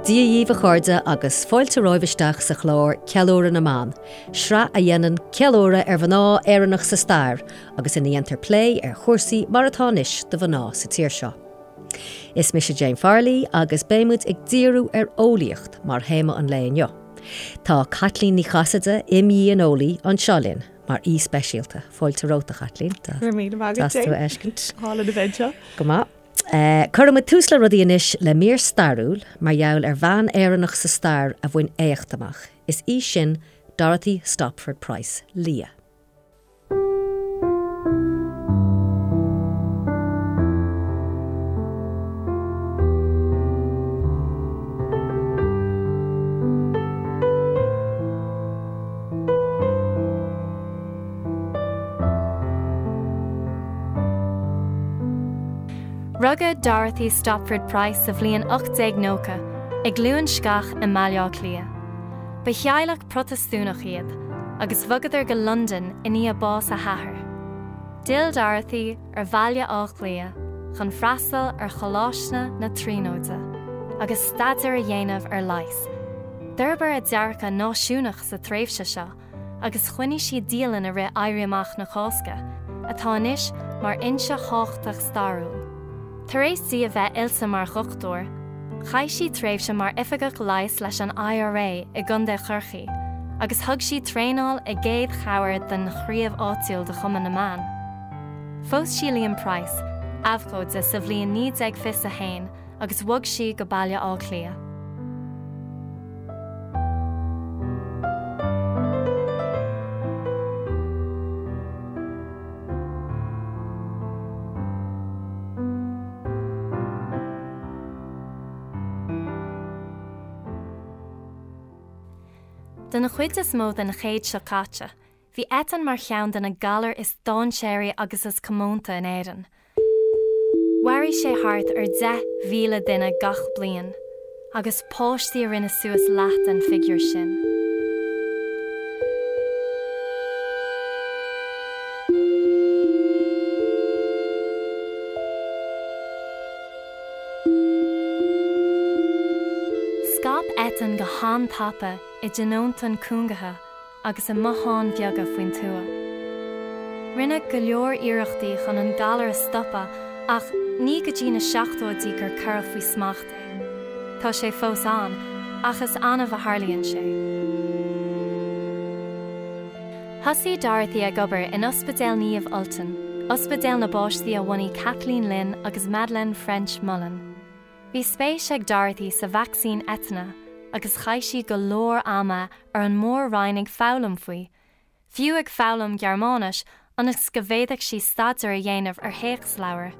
Dia dhíbh a chairde agus fáilte romhaibh isteach sa chlár Ceiliúradh na mBan, sraith a dhéanann ceiliúradh ar mhná Éireannach sa stair agus ina dhéantar plé ar chúrsaí mar atá anois do mhná sa tír seo. Is mise Jane Farley agus beidh muid ag díriú ar eolaíocht mar théama an lae inniu. Tá Caitlín Ní Chasaide, imdhíoneolaí, anseo linn mar aoi speisialta. Fáilte romhat, a Chaitlín. Go raibh míle maith agat, Deas tú a fheiscint. Álainn a bheith anseo. Go maith. Cuirfidh muid tús le rudaí anois le mír stairiúil mar gheall ar bhean Éireannach sa stair a bhain éacht amach. Is í sin Dorothy Stopford Price, Lia. Rugadh Dorothy Stopford Price sa bhliain 1890 i gCluain Sceach i mBaile Átha Cliath. Ba theaghlach Protastúnach iad, agus bhogadar go Londain i ndiaidh bás a hathar. D'fhill Dorothy ar Bhaile Átha Cliath chun freastal ar Choláiste na Tríonóide agus staidéar a dhéanamh ar leigheas. D'fhorbair a dearcadh náisiúnach sa tréimhse seo agus choinnigh sí dialann i rith Éirí Amach na Cásca, atá anois mar fhoinse thábhachtach stairiúil. Tar éis di a bheith oilte mar dhochtúir, chaith sí tréimhse mar oifigeach leighis leis an IRA i gContae Chorcaí agus thug sí traenáil i gcéad chabhair don chraobh áitiúil de Chumann na mBan. Phós sí Liam Price, abhcóide, sa bhliain 1921 agus bhog sí go Baile Átha Cliath. Don chuid is mó den chéad seo caite, Bhí eitinn mar cheann de na galair is dainséaraí agus is comónta in Éirinn. Mharaigh sé thart ar 10,000 duine gach bliain, agus páistí a rinne suas leath den figiúr sin. Scaip eitinn go han-tapa i dtionóntáin cúngaithe agus i mbotháin bheaga faoin tuath. Rinneadh go leor iarrachtaí chun an galar a stopadh ach ní go dtí na seachtóidí gur cuireadh faoi smacht é. Tá sé fós ann, ach is annamh a tharlaíonn sé. Thosaigh Dorothy ag obair in Ospidéal Naomh Ultan, ospidéal na bpáistí a bhunaigh Kathleen Lynn agus Madeleine ffrench-Mullen. Bhí spéis ag Dorothy sa vacsaín eitinne agus chaith sí go leor ama ar an mór-roinn ag foghlaim faoi, fiú ag foghlaim Gearmáinis ionas go bhféadfadh sí staidéar a dhéanamh ar théacsleabhair.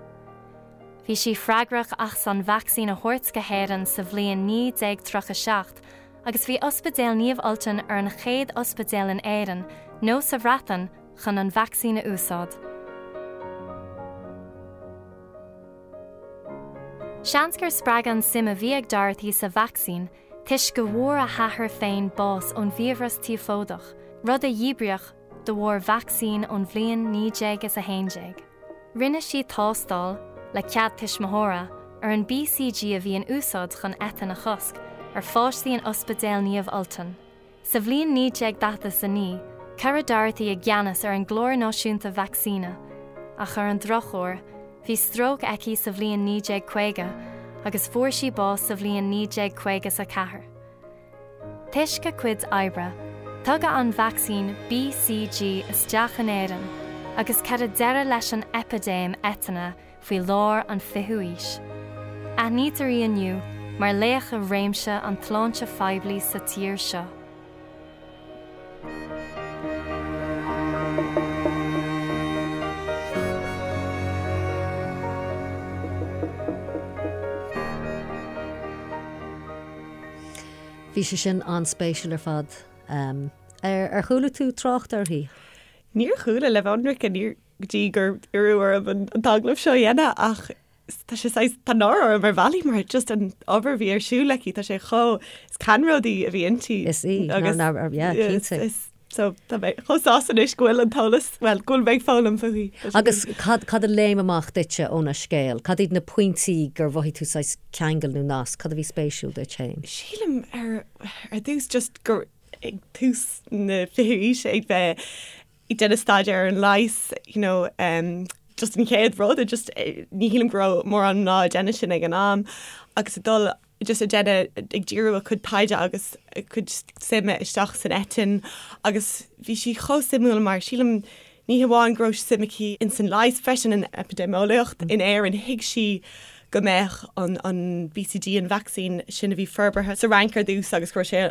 Bhí sí freagrach as an vacsaín a thabhairt go hÉirinn sa bhliain 1937 agus bhí Ospidéal Naomh Ultan ar an chéad ospidéal in Éirinn nó sa Bhreatain chun an vacsaín a úsáid. Seans gur spreagadh an suim a bhí ag Dorothy sa vacsaín toisc go bhfuair a hathair féin bás ón bhfiabhras tíofódach, rud a díbríodh de bharr vacsaín ón bhliain 1911. Rinne sí tástáil, le cead tuismitheora, ar an BCG a bhí in úsáid chun eitinn a chosc, ar pháistí in Ospidéal Naomh Ultan. Sa bhliain 1949, cuireadh Dorothy i gceannas ar an gClár Náisiúnta Vacsaíne, ach ar an drochuair, bhí stróc aici sa bhliain 1950 agus fuair sí bás sa bhliain 1954. Toisc a cuid oibre, tugadh an vacsaín BCG isteach in Éirinn agus cuireadh deireadh leis an eipidéim eitinne faoi lár an fichiú aois. Aithnítear í inniu mar laoch i réimse an tsláinte phoiblí sa tír seo. Bhí sé sin an-spéisiúil ar fad. Ar chuala tú trácht uirthi? Níor chuala, le bheith ionraic, níor go dtí gur iarradh orm an t-agallamh seo a dhéanamh ach tá sé saghas, tá náire orm ar bhealaí mar just an obair a bhí ar siúl aici, tá sé chomh, is ceannródaí a bhí inti. Is í, agus, yeah, cinnte. So tá mé chomh sásta anois go bhfuil an t-eolas, bhuel, go bhfuil mé ag foghlaim fúithi. Agus cad, cad a léim amach duitse óna scéal? Cad iad na pointí gur mhothaigh tú saghas ceangal nó nasc? Cad a bhí spéisiúil duit féin? Sílim ar, ar dtús just gur ag tús na fichiú aoise ag bheith ag déanamh staidéar ar an leigheas, you know, um, just an chéad rud, just ní shílim go raibh mórán mná ag déanamh sin ag an am agus ag dul just ag déanamh, ag díriú a cuid taighde agus a cuid suime isteach san eitinn agus bhí sí chomh suimiúil mar sílim ní hamháin go raibh suim aici ins an leigheas freisin in eipidéimeolaíocht in Éirinn, thuig sí go mbeadh an an BCG, an vacsaín sin a bhí forbartha sa Fhrainc ar dtús agus go raibh sé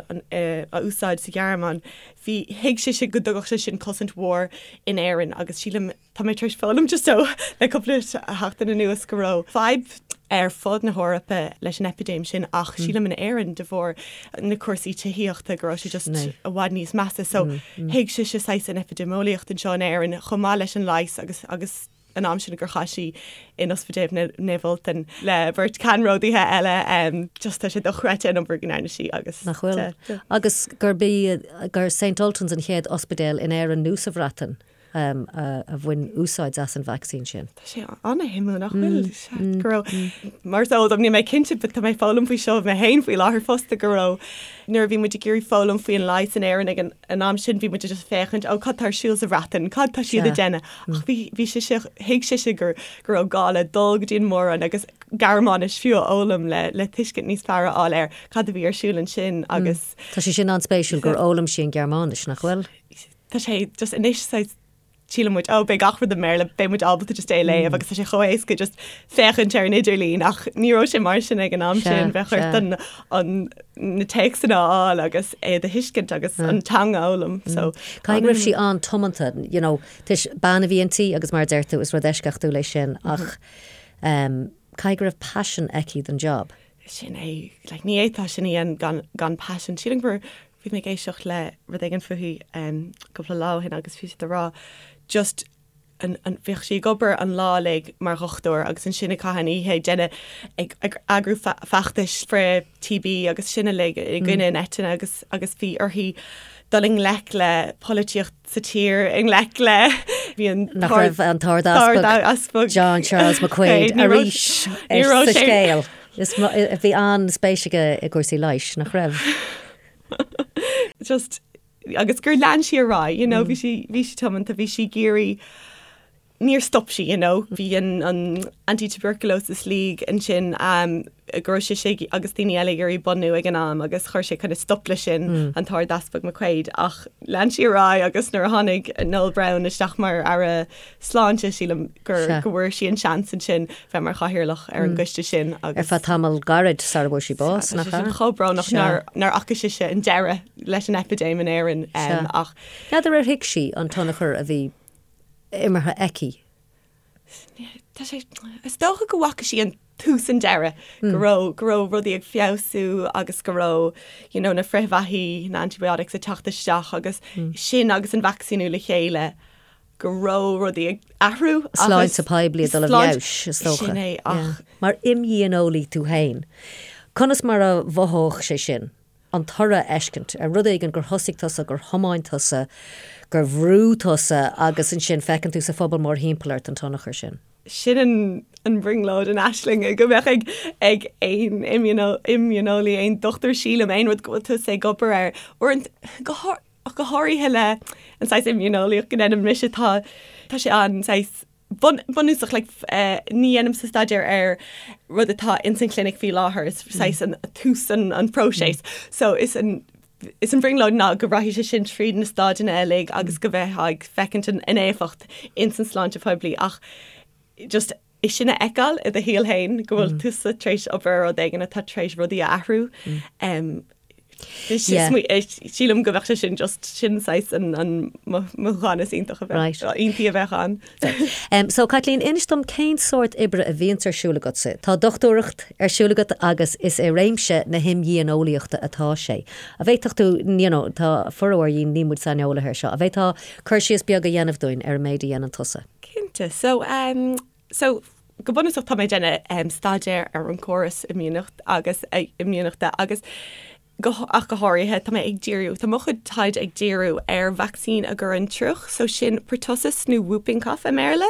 á úsáid sa Ghearmáin, bhí, thuig sise go dtugadh sé sin cosaint mhór in Éirinn agus sílim, tá mé tar éis foghlaim just ó le cúpla seachtain anuas go raibh fadhb ar fud na hEorpa leis an eipidéim sin ach sílim in Éirinn de bharr na cúrsaí tithíochta go raibh sé just i bhfad níos measa. So thuig sise saghas an eipidéimeolaíocht anseo in Éirinn chomh maith leis an leigheas agus agus an am sin gur chaith sí in Ospidéal Naomh Ultan le beirt ceannródaithe eile. Just tá sé dochreidte an obair go ndearna sí agus. Nach bhfuil? Agus gurb í gur St Ultan's an chéad ospidéal in Éirinn nó sa Bhreatain a bhain úsáid as an vacsaín sin. Tá sé an-shuimiúil nach bhfuil? Sea, go raibh, mar is eol dom, níl mé cinnte but tá mé ag foghlaim faoi seo mé féin faoi láthair fosta, go raibh nuair a bhí muid ag iarraidh foghlaim faoin leigheas in Éirinn ag an an am sin bhí muid just ag féachaint, ó cad tá ar siúl sa Bhreatain, cad tá siad ag déanamh? Ach bhí, bhí sise, thuig sise gur, go raibh gá le dul go dtí an Mór-Roinn agus Gearmáinis fiú a fhoghlaim le, le tuiscint níos fearr a fháil ar cad a bhí ar siúl ansin agus. Tá sé sin an-spéisiúil gur fhoghlaim sí an Ghearmáinis, nach bhfuil? Tá sé just anois saghas síleann muid, oh beidh gach rud i mBéarla, beidh muid ábalta just é a léamh agus tá sé chomh éasca just féachaint ar an idirlíon ach ní raibh sé mar sin ag an am sin, bheadh ort an, an, na téacsanna a fháil agus é a thuiscint agus an teanga a fhoghlaim so. Caithfidh go raibh sí an-tiomanta, you know, toisc bean a bhí inti agus mar a deir tú is rud eisceachtúil é sin ach um, caithfidh go raibh paisean aici don job. Sin é, like, ní fhéadfá sin a dhéanamh gan, gan paisean. Sílim gur bhí mé ag éisteacht le rud éigin fúithi um, cúpla lá ó shin agus bhí siad ag rá just an, an, bhíodh sí ag obair an lá uilig mar dhochtúir agus ansin ag caitheamh an oíche ag déanamh ag, ag eagrú fe, feachtais frith TB agus sin uilig i gcoinne an eitinne agus, agus bhí uirthi dul i ngleic le polaitíocht sa tír i ngleic le bhí an Nach raibh an tArd-Easpag John Charles McQuaid arís sa scéal. Is bhí an-spéis aige i gcúrsaí leighis, nach raibh? Just agus gur lean sí ar aghaidh, you know, bhí sí bhí sí tiomanta, bhí sí ag iarraidh níor stop sí, you know. Bhí an an Anti-Tuberculosis League ansin um, go raibh sise agus daoine eile ag iarraidh bunú ag an am agus chuir sé kind of stop leis sin mm. an tArd-Easpag McQuaid ach lean sí ar aghaidh agus nuair a tháinig Noel Browne isteach mar aire sláinte sílim gur go bhfuair sí an seans ansin bheith mar chathaoirleach ar an mm. gcoiste sin agus ar feadh tamall gairid sara bhfuair sí bás nach ea? chomh brónach nár nár fhaca sise an deireadh leis an eipidéim in Éirinn um, ach N'fheadar ar thuig sí an tionchar a bhí imeartha aici. Tá sé, is dócha go bhfaca sí an tús an deireadh, go raibh, go raibh rudaí ag feabhsú agus go raibh, you know, na frithbheathaí, na antibiotics ag teacht isteach agus sin agus an vacsaíniú le chéile, go raibh rudaí ag athrú agus. Sláinte poiblí ag dul i bhfeabhas, is dócha. Sin é, ach. Mar imdhíoneolaí tú féin, conas mar a mhothódh sé sin? an toradh a fheiscint ar rud éigin gur thosaigh tusa, gur thiomáin tusa, gur bhrúigh tusa agus ansin feiceann tú sa phobal mórthimpeall ort an tionchar sin. Sin an an bhrionglóid, an aisling go mbeadh ag ag aon imdhíoneolaí, aon dochtúir sílim, aon rud go bhfuil tusa ag obair air. Uaireanta, go go háirithe le an saghas imdhíoneolaíocht go ndéanaim mise, tá tá sé an saghas bunúsach like ní dhéanaimse staidéar ar rud atá ins an chlinic faoi láthair, is saghas an tús an an próiseas. So is an is an bhrionglóid ná go rachaidh sé sin tríd na stáideanna uilig agus go mbeifeá ag feicint an an éifeacht ins an sláinte phoiblí ach just é sin a fheiceáil i do shaol féin go bhfuil tusa tar éis obair ar rud éigin atá tar éis rudaí a athrú. Um, Sílim go bheadh sé sin just sin saghas an mothúchán is iontach a bheith iontaí a bheadh ann. So Caitlín, inis dom cén sórt oibre a bhíonns ar siúl agatsa. Tá dochtúireacht ar siúl agat agus is i réimse na himdhíoneolaíochta atá sé. An bhféadfadh tú, you know, tá formhór dhínn, níl muid saineolaithe ar seo, an bhféadfá cur síos beag a dhéanamh dúinn ar an méid a dhéanann tusa? Cinnte. So, um, so go bunúsach tá mé ag déanamh staidéar ar an córas imdhíonachta agus imdhíonachta agus. Go, ach go háirithe, tá mé ag díriú, tá mo chuid taighde ag díriú ar vacsaín a gcuireann triuch, so sin pertussis nó whooping cough i mBéarla,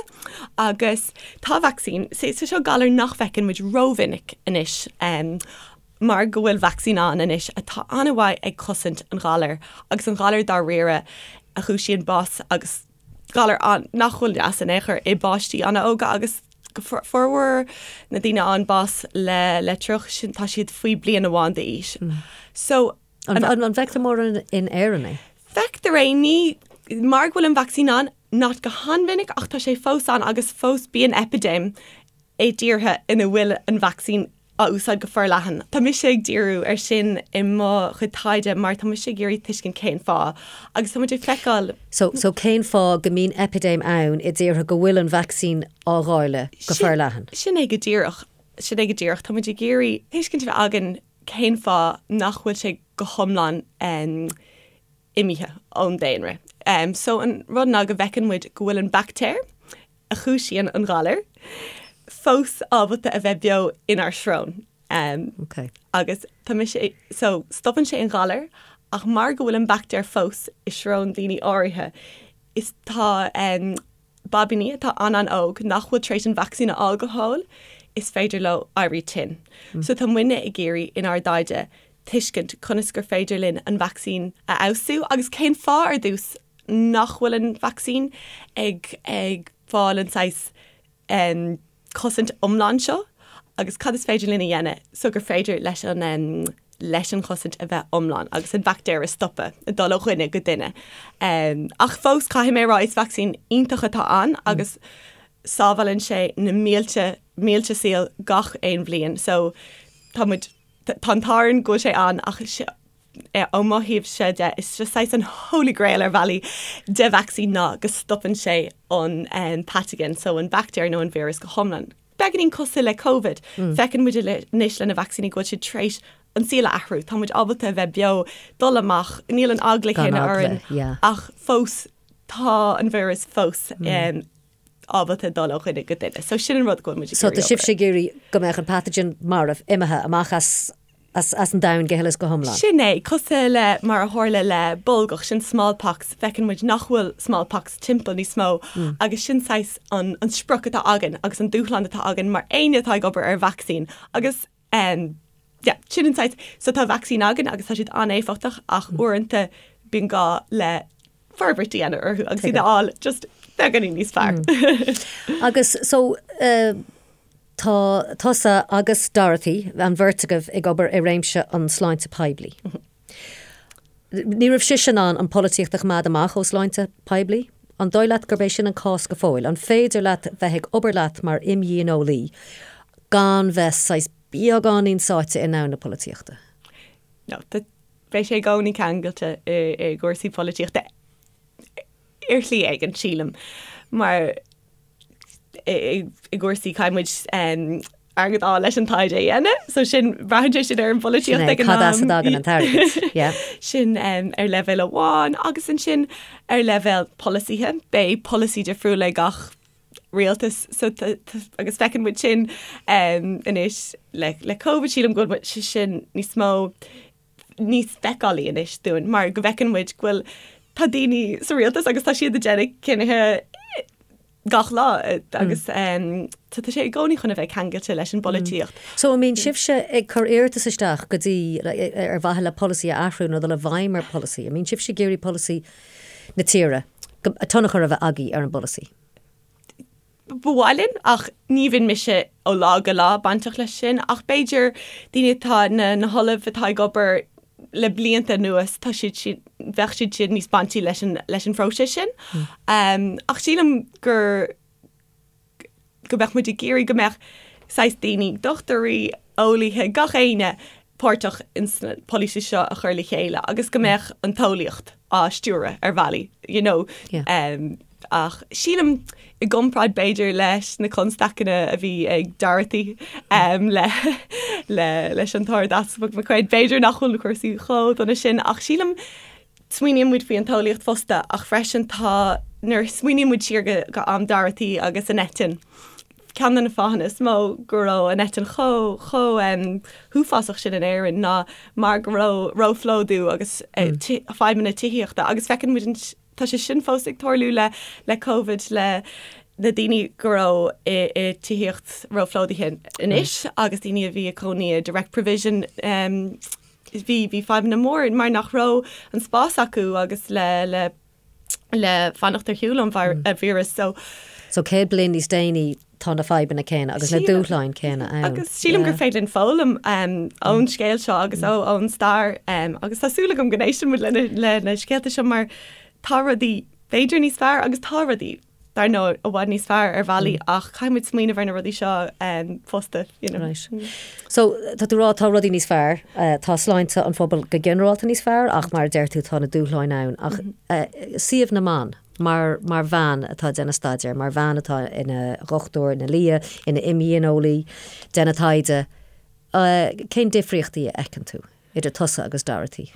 agus tá vacsaín, so seo galar nach bhfeiceann muid rómhinic anois, mar go bhfuil vacsaín ann anois atá an-mhaith ag cosaint an ghalair, agus an galar dáiríre a chúisíonn bás agus galar nach bhfuil deas in aon chor i bpáistí an-óga agus formhór na daoine a fhaigheann bás le le triuch sin tá siad faoi bliain amháin d'aois. So an an bhfeictear mórán in Éirinn é? Feictear é ní mar go bhfuil an vacsaín ann not go han-mhinic ach tá sé fós ann agus fós bíonn eipidéim i dtíortha ina bhfuil an vacsaín á úsáid go forleathan. Tá mise ag díriú ar sin i mo chuid taighde mar tá mise ag iarraidh tuiscint cén fáth agus tá muid ag feiceáil. So, so cén fáth go mbíonn eipidéim ann i dtíortha go bhfuil an vacsaín á dháileadh go forleathan? Sin é go díreach. Sin é go díreach. Tá muid ag iarraidh tuiscint a bheith againn cén fáth nach bhfuil sé go hiomlán imithe ón daonra. So an rud ná go bhfeiceann muid go bhfuil an baictéar, a chúisíonn an galar, fós ábalta a bheith beo inár srón. Ok. Agus tá mise, so stopann sé an galar ach mar go bhfuil an baictéar fós i srón daoine áirithe, is tá baibíní atá an-an-óg nach bhfuil tar éis an vacsaín a fháil go fóill, is féidir leo éirí tinn. So tá muidne ag iarraidh inár dtaighde tuiscint conas gur féidir linn an vacsaín a fheabhsú agus cén fáth ar dtús nach bhfuil an vacsaín ag ag fáil an saghas cosaint iomlán seo agus cad is féidir linn a dhéanamh so gur féidir leis an leis an chosaint a bheith iomlán agus an baictéar a stopadh ag dul ó dhuine go duine. Ach fós caithfidh mé a rá is vacsaín iontach atá ann agus sábhálann sé na mílte mílte saol gach aon bhliain so tá muid tá an t-ádh orainn go bhfuil sé ann ach Ó mo thaobhse de, is just saghas an holy grail ar bhealaí de vacsaín ná go stopann sé an pathogen, so an baictéar nó an víreas go hiomlán. Beagáinín cosúil le Covid. Feiceann muid anois le na vacsaíní go bhfuil siad tar éis an saol a athrú. Tá muid ábalta a bheith beo, dul amach, níl an eagla céanna orainn ach fós tá an víreas fós ábalta dul ó dhuine go duine. So sin an rud go bhfuil muid ag iarraidh. So tá sibhse ag iarraidh go mbeadh an pathogen marbh, imithe amach as as an domhan go huile is go hiomlán. Sin é, cosúil le mar a tharla le bolgach, sin smallpox, feiceann muid nach bhfuil smallpox timpeall níos mó agus sin saghas an an sprioc atá againn agus an dúshlán atá againn mar éinne atá ag obair ar vacsaín agus um, yeah, sin an saghas, so tá vacsaín againn agus tá siad an-éifeachtach ach uaireanta bíonn gá le forbairt a dhéanamh orthu agus iad a fháil just beagáinín níos fearr. Agus so uh, tá tusa agus Dorothy, an bheirt agaibh ag obair i réimse an sláinte poiblí. Ní raibh sise in ann an polaitíocht a choimeád amach ó sláinte poiblí? An dóigh leat gurb é sin an cás go fóill? An féidir leat bheith ag obair leat mar imdhíoneolaí gan bheith saghas beagáinín sáite i ndomhan na polaitíochta? No, Beidh sé i gcónaí ceangailte i gcúrsaí polaitíochta ar shlí éigin, sílim, mar i gcúrsaí caithfidh muid airgead a fháil leis an taighde a dhéanamh, so sin, braitheann sé sin ar an bpolaitíocht ag an am. Cad as a dtagann an t-airgead, yeah. Sin ar leibhéal amháin agus ansin ar leibhéal polasaithe, beidh polasaí difriúil ag gach rialtas so agus feiceann muid sin anois le le Covid sílim go bhfuil sé sin níos mó níos feiceálaí anois dúinn mar go bhfeiceann muid go bhfuil tá daoine sa rialtas agus tá siad ag déanamh cinnithe gach lá agus tá sé i gcónaí chun a bheith ceangailte leis an bpolaitíocht. So an mbíonn sibhse ag cur iarratas isteach go dtí ar mhaithe le polasaí a athrú nó dul i bhfeidhm ar pholasaí? An mbíonn sibhse ag iarraidh polasaí na tíre, tionchar a bheith agaibh ar an bpolasaí? Ba mhaith linn, ach ní bhíonn mise ó lá go lá bainteach leis sin, ach b'fhéidir daoine atá, na na hollaimh atá ag obair le blianta anuas, tá siad sin, bheadh siad sin níos baintí leis an leis an phróiseas sin. Ach sílim gur go mbeadh muid ag iarraidh go mbeadh saghas daoine, dochtúirí, eolaithe, gach éinne páirteach ins na polasaí seo a chur le chéile agus go mbeadh an t-eolaíocht á stiúradh ar bhealaí, you know. Yeah. Ach sílim i gcomparáid b'fhéidir leis na constaiceanna a bhí ag Dorothy le le leis an tArd-Easpag McQuaid, b'fhéidir nach bhfuil na cúrsaí chomh dona sin ach sílim smaoiníonn muid faoi an t-eolaíocht fosta ach freisin tá nuair a smaoiníonn muid siar go go am Dorothy agus an eitinn. ceann de na fáthanna is mó go raibh an eitinn chomh chomh huafásach sin in Éirinn ná mar go raibh róphlódú agus fadhbanna tithíochta agus feiceann muid an tá sé sin fós ag tarlú le le Covid le na daoine go raibh i i tithíocht róphlódaithe anois agus daoine a bhí ag cónaí i direct provision bhí bhí fadhbanna mór mar nach raibh an spás acu agus le le le fanacht ar shiúl ón víreas. So. So 100 bliain níos déanaí tá na fadhbanna céanna agus na dúshláin céanna ann. Agus sílim gur féidir linn foghlaim ón scéal seo agus ón stair agus tá súil agam go n-éisteann muid le na scéalta seo mar tá rudaí b'fhéidir níos fearr agus tá rudaí dar ndóigh, i bhfad níos fearr ar bhealaí ach caithfidh muid smaoineamh ar na rudaí seo fosta, you know. Right. So, tá tú ag rá tá rudaí níos fearr, tá sláinte an phobail go ginearálta níos fearr ach mar a deir tú tá na dúshláin ann ach suíomh na mban mar mar bhean atá ag déanamh staidéir, mar bhean atá ina dhochtúir, ina lia, ina imdhíoneolaí, déanamh taighde, cén difríochtaí a fheiceann tú idir tusa agus Dorothy?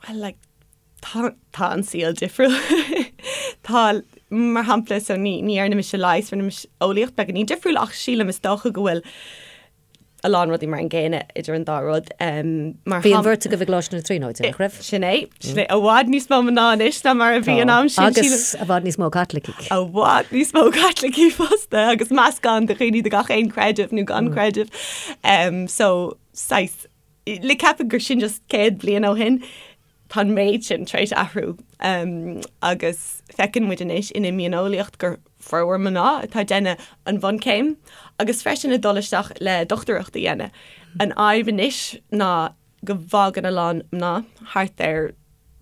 Well, like, tá, tá an saol difriúil. Tá, mar shampla, so ní, ní dhearna mise leigheas, rinne mise eolaíocht beagáinín difriúil ach sílim is dócha go bhfuil a lán rudaí mar an gcéanna idir an dá rud. Um, mar Bhí an bheirt agaibh i gColáiste na Tríonóide, nach raibh? Sin é, sin é, i bhfad níos mó mná anois ná mar a bhí an am sin. Agus i bhfad níos mó Caitlicigh. I bhfad níos mó Caitlicigh fosta agus meascán de dhaoine de gach aon creideamh nó gan creideamh. Um, so, saghas, le ceapadh gur sin just 100 bliain ó shin, tá an méid sin tar éis athrú agus feiceann muid anois in imdhíoneolaíocht gur formhór mná atá ag déanamh an bhunchéim agus freisin ag dul isteach le dochtúireacht a dhéanamh. An fhadhb anois ná go bhfágann a lán mná thart ar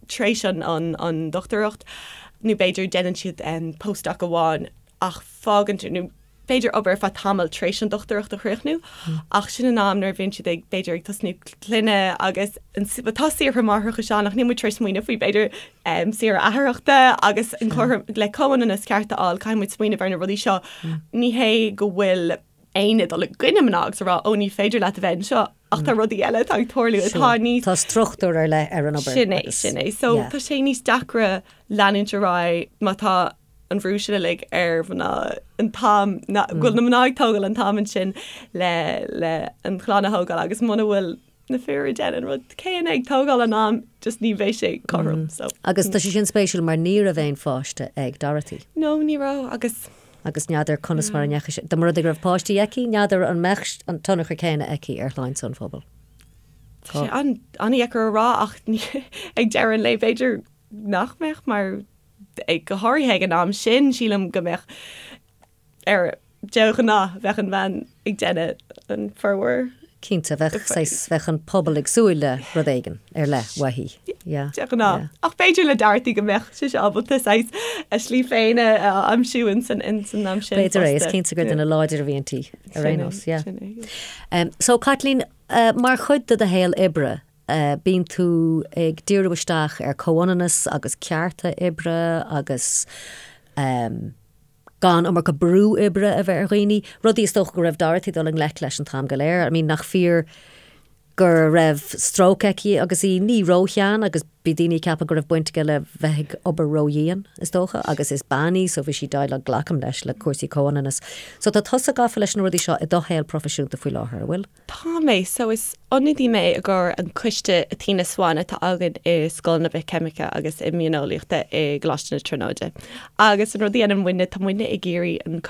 tar éis an an dochtúireacht nó b'fhéidir déanann siad postdoc amháin ach fágann nó b'fhéidir obair ar feadh tamaill tar éis an dochtúireacht a chríochnú, ach sin an am nuair a bhíonn siad ag, b'fhéidir, ag tosnú clainne agus tá saoire máithreachais ann ach níl muid tar éis smaoineamh faoi, b'fhéidir, saoire atharthachta agus an cothrom, le comhionannas ceart a fháil, caithfidh muid smaoineamh ar na rudaí seo. Ní hé go bhfuil éinne ag dul i gcoinne mná agus a rá, ó ní féidir leat a bheith anseo, ach tá rudaí eile atá ag tarlú atá níos. Tá struchtúr ar leith ar an obair. Sin é, sin é. So tá sé níos deacra leanúint ar aghaidh má tá an bhrú sin uilig ar mhná an t-am go bhfuil na mná ag tógáil an t-am ansin le le an chlann a thógáil agus muna bhfuil na fir ag déanamh an rud céanna ag tógáil an am just ní bheidh sé cothrom so. Agus tá sé sin spéisiúil mar ní raibh aon pháiste ag Dorothy. No ní raibh agus. Agus n'fheadar conas mar a ndeachaigh sé, dá mba rud é go raibh páistí aici, n'fheadar an mbeadh an tionchar céanna aici ar shláinte an phobail. Tá sé an-deacair a rá ach ag deireadh an lae b'fhéidir nach mbeadh mar go háirithe ag an am sin, sílim go mbeadh ar de ghnáth bheadh an bhean ag déanamh an formhór. Cinnte, bheadh saghas, bheadh an pobal ag súil le rud éigin ar leith uaithi. Yeah. De ghnáth. Ach b'fhéidir le Dorothy go mbeadh sise ábalta saghas a slí féin a aimsiú ins an am sin. B'fhéidir é, is cinnte gur duine láidir a bhí inti ar aon nós, yeah. So Caitlín, mar chuid de do shaol oibre, Bíonn tú ag díriú isteach ar comhionannas agus cearta oibre agus gan iomarca brú oibre a bheith ar dhaoine, rudaí is dócha go raibh Dorothy ag dul i ngleic leis an t-am go léir. I mean, nach fíor go raibh stróc aici agus í ní róshean agus bhí daoine ag ceapadh go raibh baint aige le bheith ag obair ródhian, is dócha, agus is bean í so bhí sí ag déileáil, glacaim leis, le cúrsaí comhionannas. So tá tusa gafa leis na rudaí seo i do shaol proifisiúnta faoi láthair, an bhfuil? Tá mé. So is ionadaí mé i gcomhair an coiste Athena Swan atá againn i Scoil na Bithcheimice agus Imdhíoneolaíochta i gColáiste na Tríonóide. Agus an rud a dhéanann muidne, tá muidne ag iarraidh an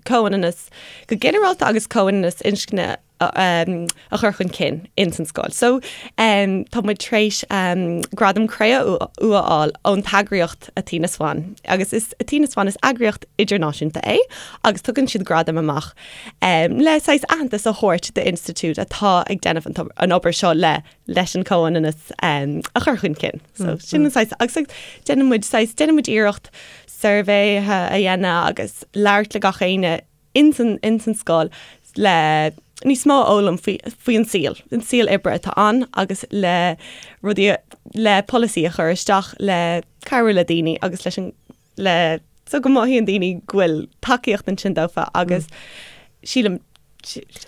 comhionannas go ginearálta agus comhionannas inscne a chur chun cinn ins an scoil. So tá muid tar éis Gradam Cré-umha a fháil ón t-eagraíocht Athena Swan. Agus is Athena Swan is eagraíocht idirnáisiúnta é agus tugann siad gradaim amach le saghas aitheantas a thabhairt d'institiúid atá ag déanamh an obair seo le leis an comhionannas a chur chun cinn. So sin an saghas agus déanann muid saghas déanann muid iarracht suirbhéithe a dhéanamh agus labhairt le gach éinne ins an ins an scoil le níos mó a fhoghlaim faoi faoi an saol, an saol oibre atá ann agus le rudaí le polasaí a chur isteach le cabhrú le daoine agus leis an le so go mothaíonn daoine go bhfuil tacaíocht ansin dófa agus sílim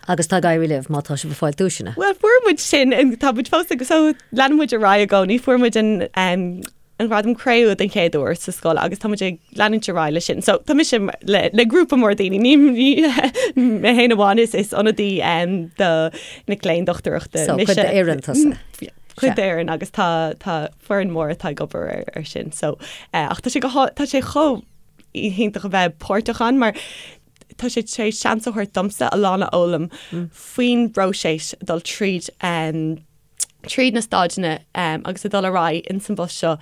Agus tá ag éirí libh má tá sibh ag fáil duaiseanna. Bhuel fuair muid sin, tá muid fós ag so leanann muid ar aghaidh i gcónaí, fuair muid an. an Ghradam Cré-umha den chéad uair sa scoil agus tá muid ag leanúint ar aghaidh leis sin. So tá mise le le grúpa mór daoine, ní ní mé féin amháin is is ionadaí do mic léinn dochtúireachta. So cuid d'fhoireann tusa. Cuid d'fhoireann agus tá tá foireann mór atá ag obair ar ar sin. So ach tá sé go tá sé chomh hiontach a bheith páirteach ann mar tá sé tar éis seans a thabhairt domsa a lán a fhoghlaim faoin bpróiseas dul tríd tríd na staideanna agus a dul ar aghaidh ins an bpost seo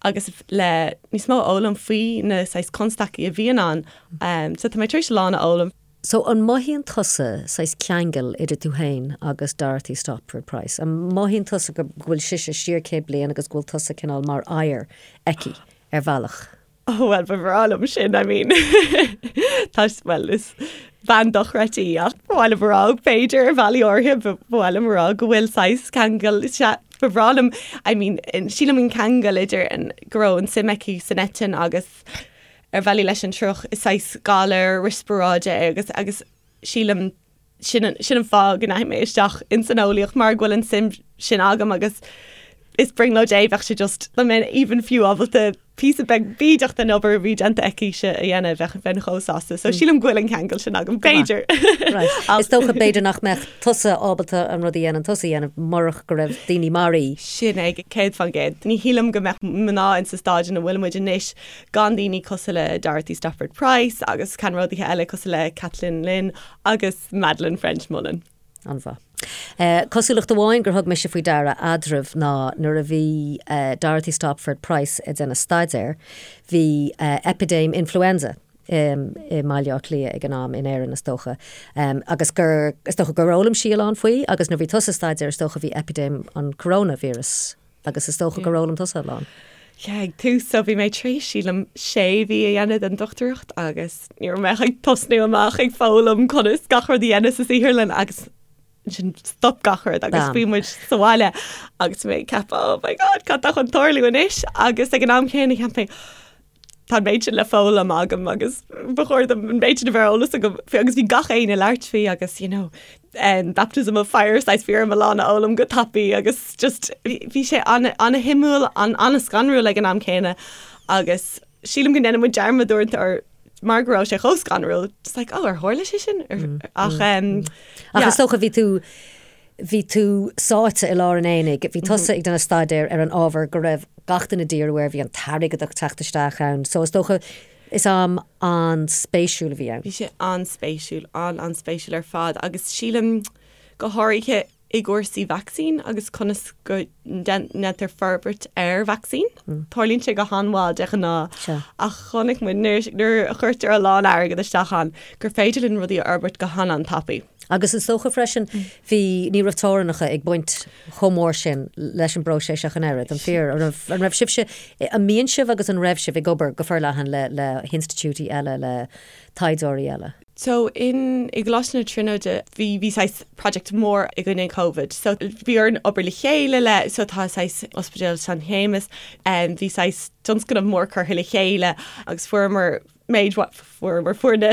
agus le níos mó a fhoghlaim faoi na saghas constaicí a bhíonn ann. So tá mé tar éis a lán a fhoghlaim. So an mothaíonn tusa saghas ceangal idir tú féin agus Dorothy Stopford Price? An mothaíonn tusa go bhfuil sise siar 100 bliain agus go bhfuil tusa cineál mar oidhre aici ar bhealach? Oh well ba bhreá liom sin, I mean tá well is bean dochreidte í ach ba mhaith liom a rá b'fhéidir ar bhealaí áirithe ba mhaith liom a rá go bhfuil saghas ceangal sea ba bhreá liom I mean sílim an ceangal idir an go raibh an suim aici san eitinn agus ar bhealaí leis an triuch is saghas galar riospráide é agus agus sílim sin an, sin an fáth go ndeachaigh mé isteach ins an eolaíocht mar go bhfuil an suim sin agam agus is brionglóid é, bheadh sé just, dá mbeinn even fiú ábalta píosa beag bídeach den obair a bhí déanta aici-se a dhéanamh, bheadh, bheinn chomh sásta. So sílim go bhfuil an ceangal sin agam, b'fhéidir. Right. Is dócha b'fhéidir nach mbeadh tusa ábalta an rud a dhéanann tusa a dhéanamh murach go raibh daoine mar í. Sin é, 100%. Ní shílim go mbeadh mná insa staid ina bhfuil muid anois gan daoine cosúil le Dorothy Stopford Price agus ceannródaithe eile cosúil le Kathleen Lynn agus Madeleine ffrench-Mullen. An-mhaith. Cosúlacht amháin gur thug mise faoi deara eadraibh ná nuair a bhí Dorothy Stopford Price ag déanamh staidéir, bhí eipidéim influenza i mBaile Átha Cliath ag an am, in Éirinn is dócha, agus gur, is dócha gur fhoghlaim sí a lán faoi agus nuair a bhí tusa ag staidéar is dócha bhí eipidéim an coronavirus Agus is dócha gur fhoghlaim tusa a lán. Yeah, ag tús, so bhí mé tar éis, sílim, sé mhí a dhéanamh den dochtúireacht agus ní raibh mé ach ag tosnú amach ag foghlaim conas gach rud a dhéanamh sa saotharlann agus ansin stop gach rud agus bhí muid sa bhaile agus mé ag ceapadh, oh my god, cad tá chun tarlú anois? Agus ag an am céanna cheap mé, tá an méid sin le foghlaim agam agus ba chóir dom an méid sin a bheith ar eolas agam faoi agus bhí gach éinne ag labhairt faoi agus you know um, baptism of fire saghas bhí orm a lán a fhoghlaim go tapaidh agus just bhí sé an-shuimiúil an-scanrúil ag an am céanna agus sílim go ndéanann muid dearmad uaireanta ar mar go raibh sé chomh scanrúil just like oh ar tharla sé sin ach um, ach is dócha bhí tú Bhí tú sáite i lár an aonaigh, bhí tusa ag déanamh staidéir ar an ábhar go raibh gach duine ag díriú air, bhí an t-airgead ag teacht isteach ann, so is dócha is am an-spéisiúil a bhí ann. Bhí sé an-spéisiúil, an-an-spéisiúil ar fad agus sílim go háirithe i gcúrsaí vacsaín agus conas go ndéantar forbairt ar vacsaín. Tarlaíonn sé go han-mhall de ghnáth ach chonaic muid nuair a chuirtear a lán airgead isteach ann gur féidir linn rudaí a fhorbairt go han-an-tapaidh. Agus is dócha freisin, bhí, ní raibh teorainneacha ag baint chomh mór sin leis an bpróiseas ach an oiread, an fíor? An raibh, an raibh sibhse, an mbíonn sibh agus an raibh sibh ag obair go forleathan le, le hinstitiúidí eile, le taighdeoirí eile? So in, i gColáiste na Tríonóide, bhí, bhí saghas project mór i gcoinne Covid. So bhí orainn obair le chéile le, so tá saghas Ospidéal San Shéamas, bhí saghas tionscnamh mór curtha le chéile agus fuaireamar méid fuaireamar fuair na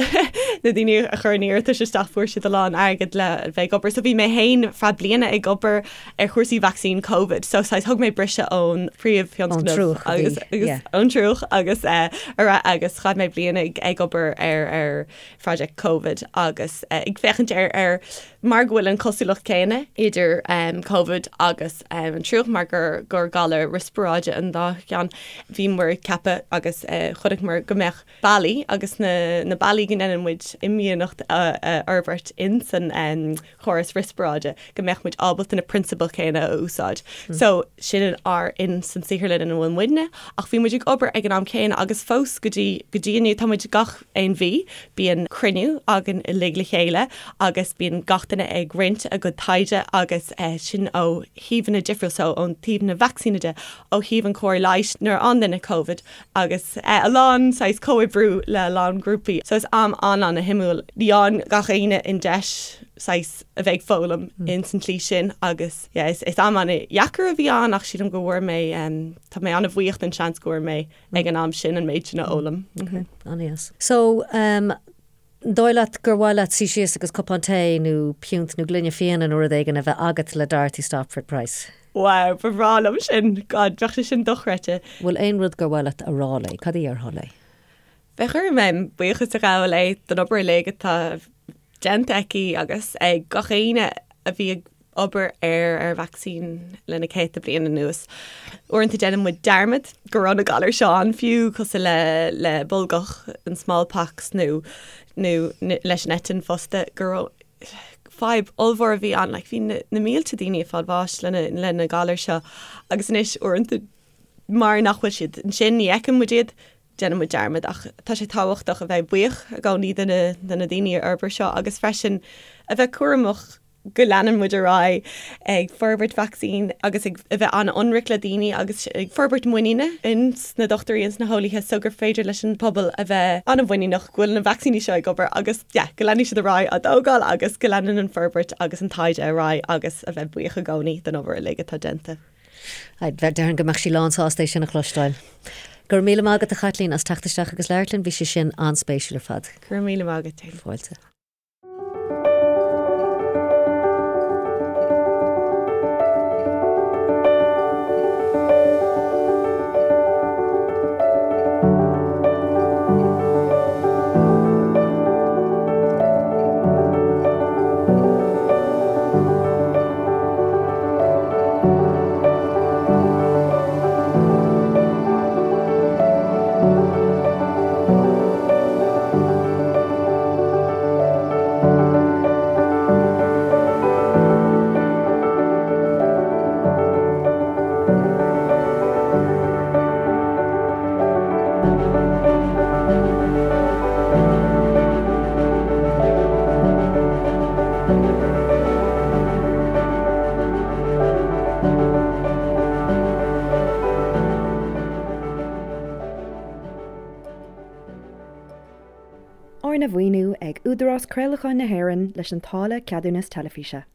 na daoine a chuir an iarratais isteach fuair siad a lán airgead le bheith ag obair. So bhí mé féin feadh bliana ag obair ar chúrsaí vacsaín Covid. So saghas thug mé briseadh ón phríomhthionscnamh agus agus ón triúch agus eh, ar agus chaith mé bliain ag ag obair ar ar project Covid agus eh, ag féachaint ar ar mar go bhfuil an cosúlacht céanna idir um, Covid agus um, an triúch mar gur gur galar riospráide an dá cheann, bhíomar ag ceapadh agus uh, chonaiceamar go mbeadh bealaí agus na, na bealaí go ndéanann muid imdhíonacht a, a fhorbairt in san um, chóras riospráide go mbeadh muid ábalta na prionsabail chéanna a úsáid. Mm. So sin an ár in san saotharlann ina bhfuil muidne ach bhí muid ag obair ag an am céanna agus fós go dtí go dtí inniu tá muid gach aon mhí, bíonn cruinniú againn uilig le chéile agus bíonn gach duine ag roinnt a gcuid taighde agus sin ó thaobhanna difriúil, so ón taobh na vacsaíne de, ó thaobh an cóir leighis nuair a fhaigheann duine Covid agus a lán saghas comhoibriú le a lán grúpaí. So is am an-an-shuimiúil. Ní fhaigheann gach éinne an deis saghas a bheith ag foghlaim ins an tslí sin agus yeah is am an-dheacair a bhí ann ach sílim go bhfuair mé, tá mé an-bhuíoch den seans go bhfuair mé ag an am sin an méid sin a fhoghlaim. Ok, an-dheas. So, um, An dóigh leat gur mhaith leat suí síos agus cupán tae nó piúnt nó gloine fíona nó rud éigin a bheith agat le Dorothy Stopford Price? Wow, ba bhreá liom sin. God, bheadh sé sin dochreidte. Bhfuil aon rud gur mhaith leat a rá léi? Cad a dhéarfá léi? Bheadh orm em, buíochas a ghabháil léi don obair uilig atá déanta aici agus ag gach éinne a bhí ag obair ar ar vacsaín le na céadta bliain anuas. Uaireanta déanann muid dearmad go raibh na galair seo ann fiú, cosúil le le bolgach, an smallpox nó nó leis an eitinn fosta, go raibh fadhb ollmhór a bhí ann, like bhí na na mílte daoine ag fáil bháis le na le na galair seo agus anois uaireanta mar nach bhfuil siad ansin ní fheiceann muid iad, déanann muid dearmad ach tá sé tábhachtach a bheith buíoch i gcónaí de na de na daoine a fhorbair seo agus freisin a bheith cúramach go leanann muid ar aghaidh ag forbairt vacsaín agus ag a bheith an-ionraic le daoine agus ag forbairt muiníne ins na dochtúirí ins na heolaithe so gur féidir leis an pobal a bheith an-mhuiníneach go bhfuil na vacsaíní seo ag obair agus yeah go leanfaidh siad ar aghaidh á dtógáil agus go leanann an forbairt agus an taighde ar aghaidh agus a bheith buíoch i gcónaí don obair uilig atá déanta. Déarfainn go mbeadh sí lán sásta é sin a chloisteáil. Go raibh míle maith agat a Chaitlín as teacht isteach agus labhairt linn, bhí sé sin an-spéisiúil ar fad. Go raibh míle maith agat. Fáilte. Arna mhaoiniú ag Údarás Craolacháin na hÉireann leis an táille Ceadúnas Teilifíse.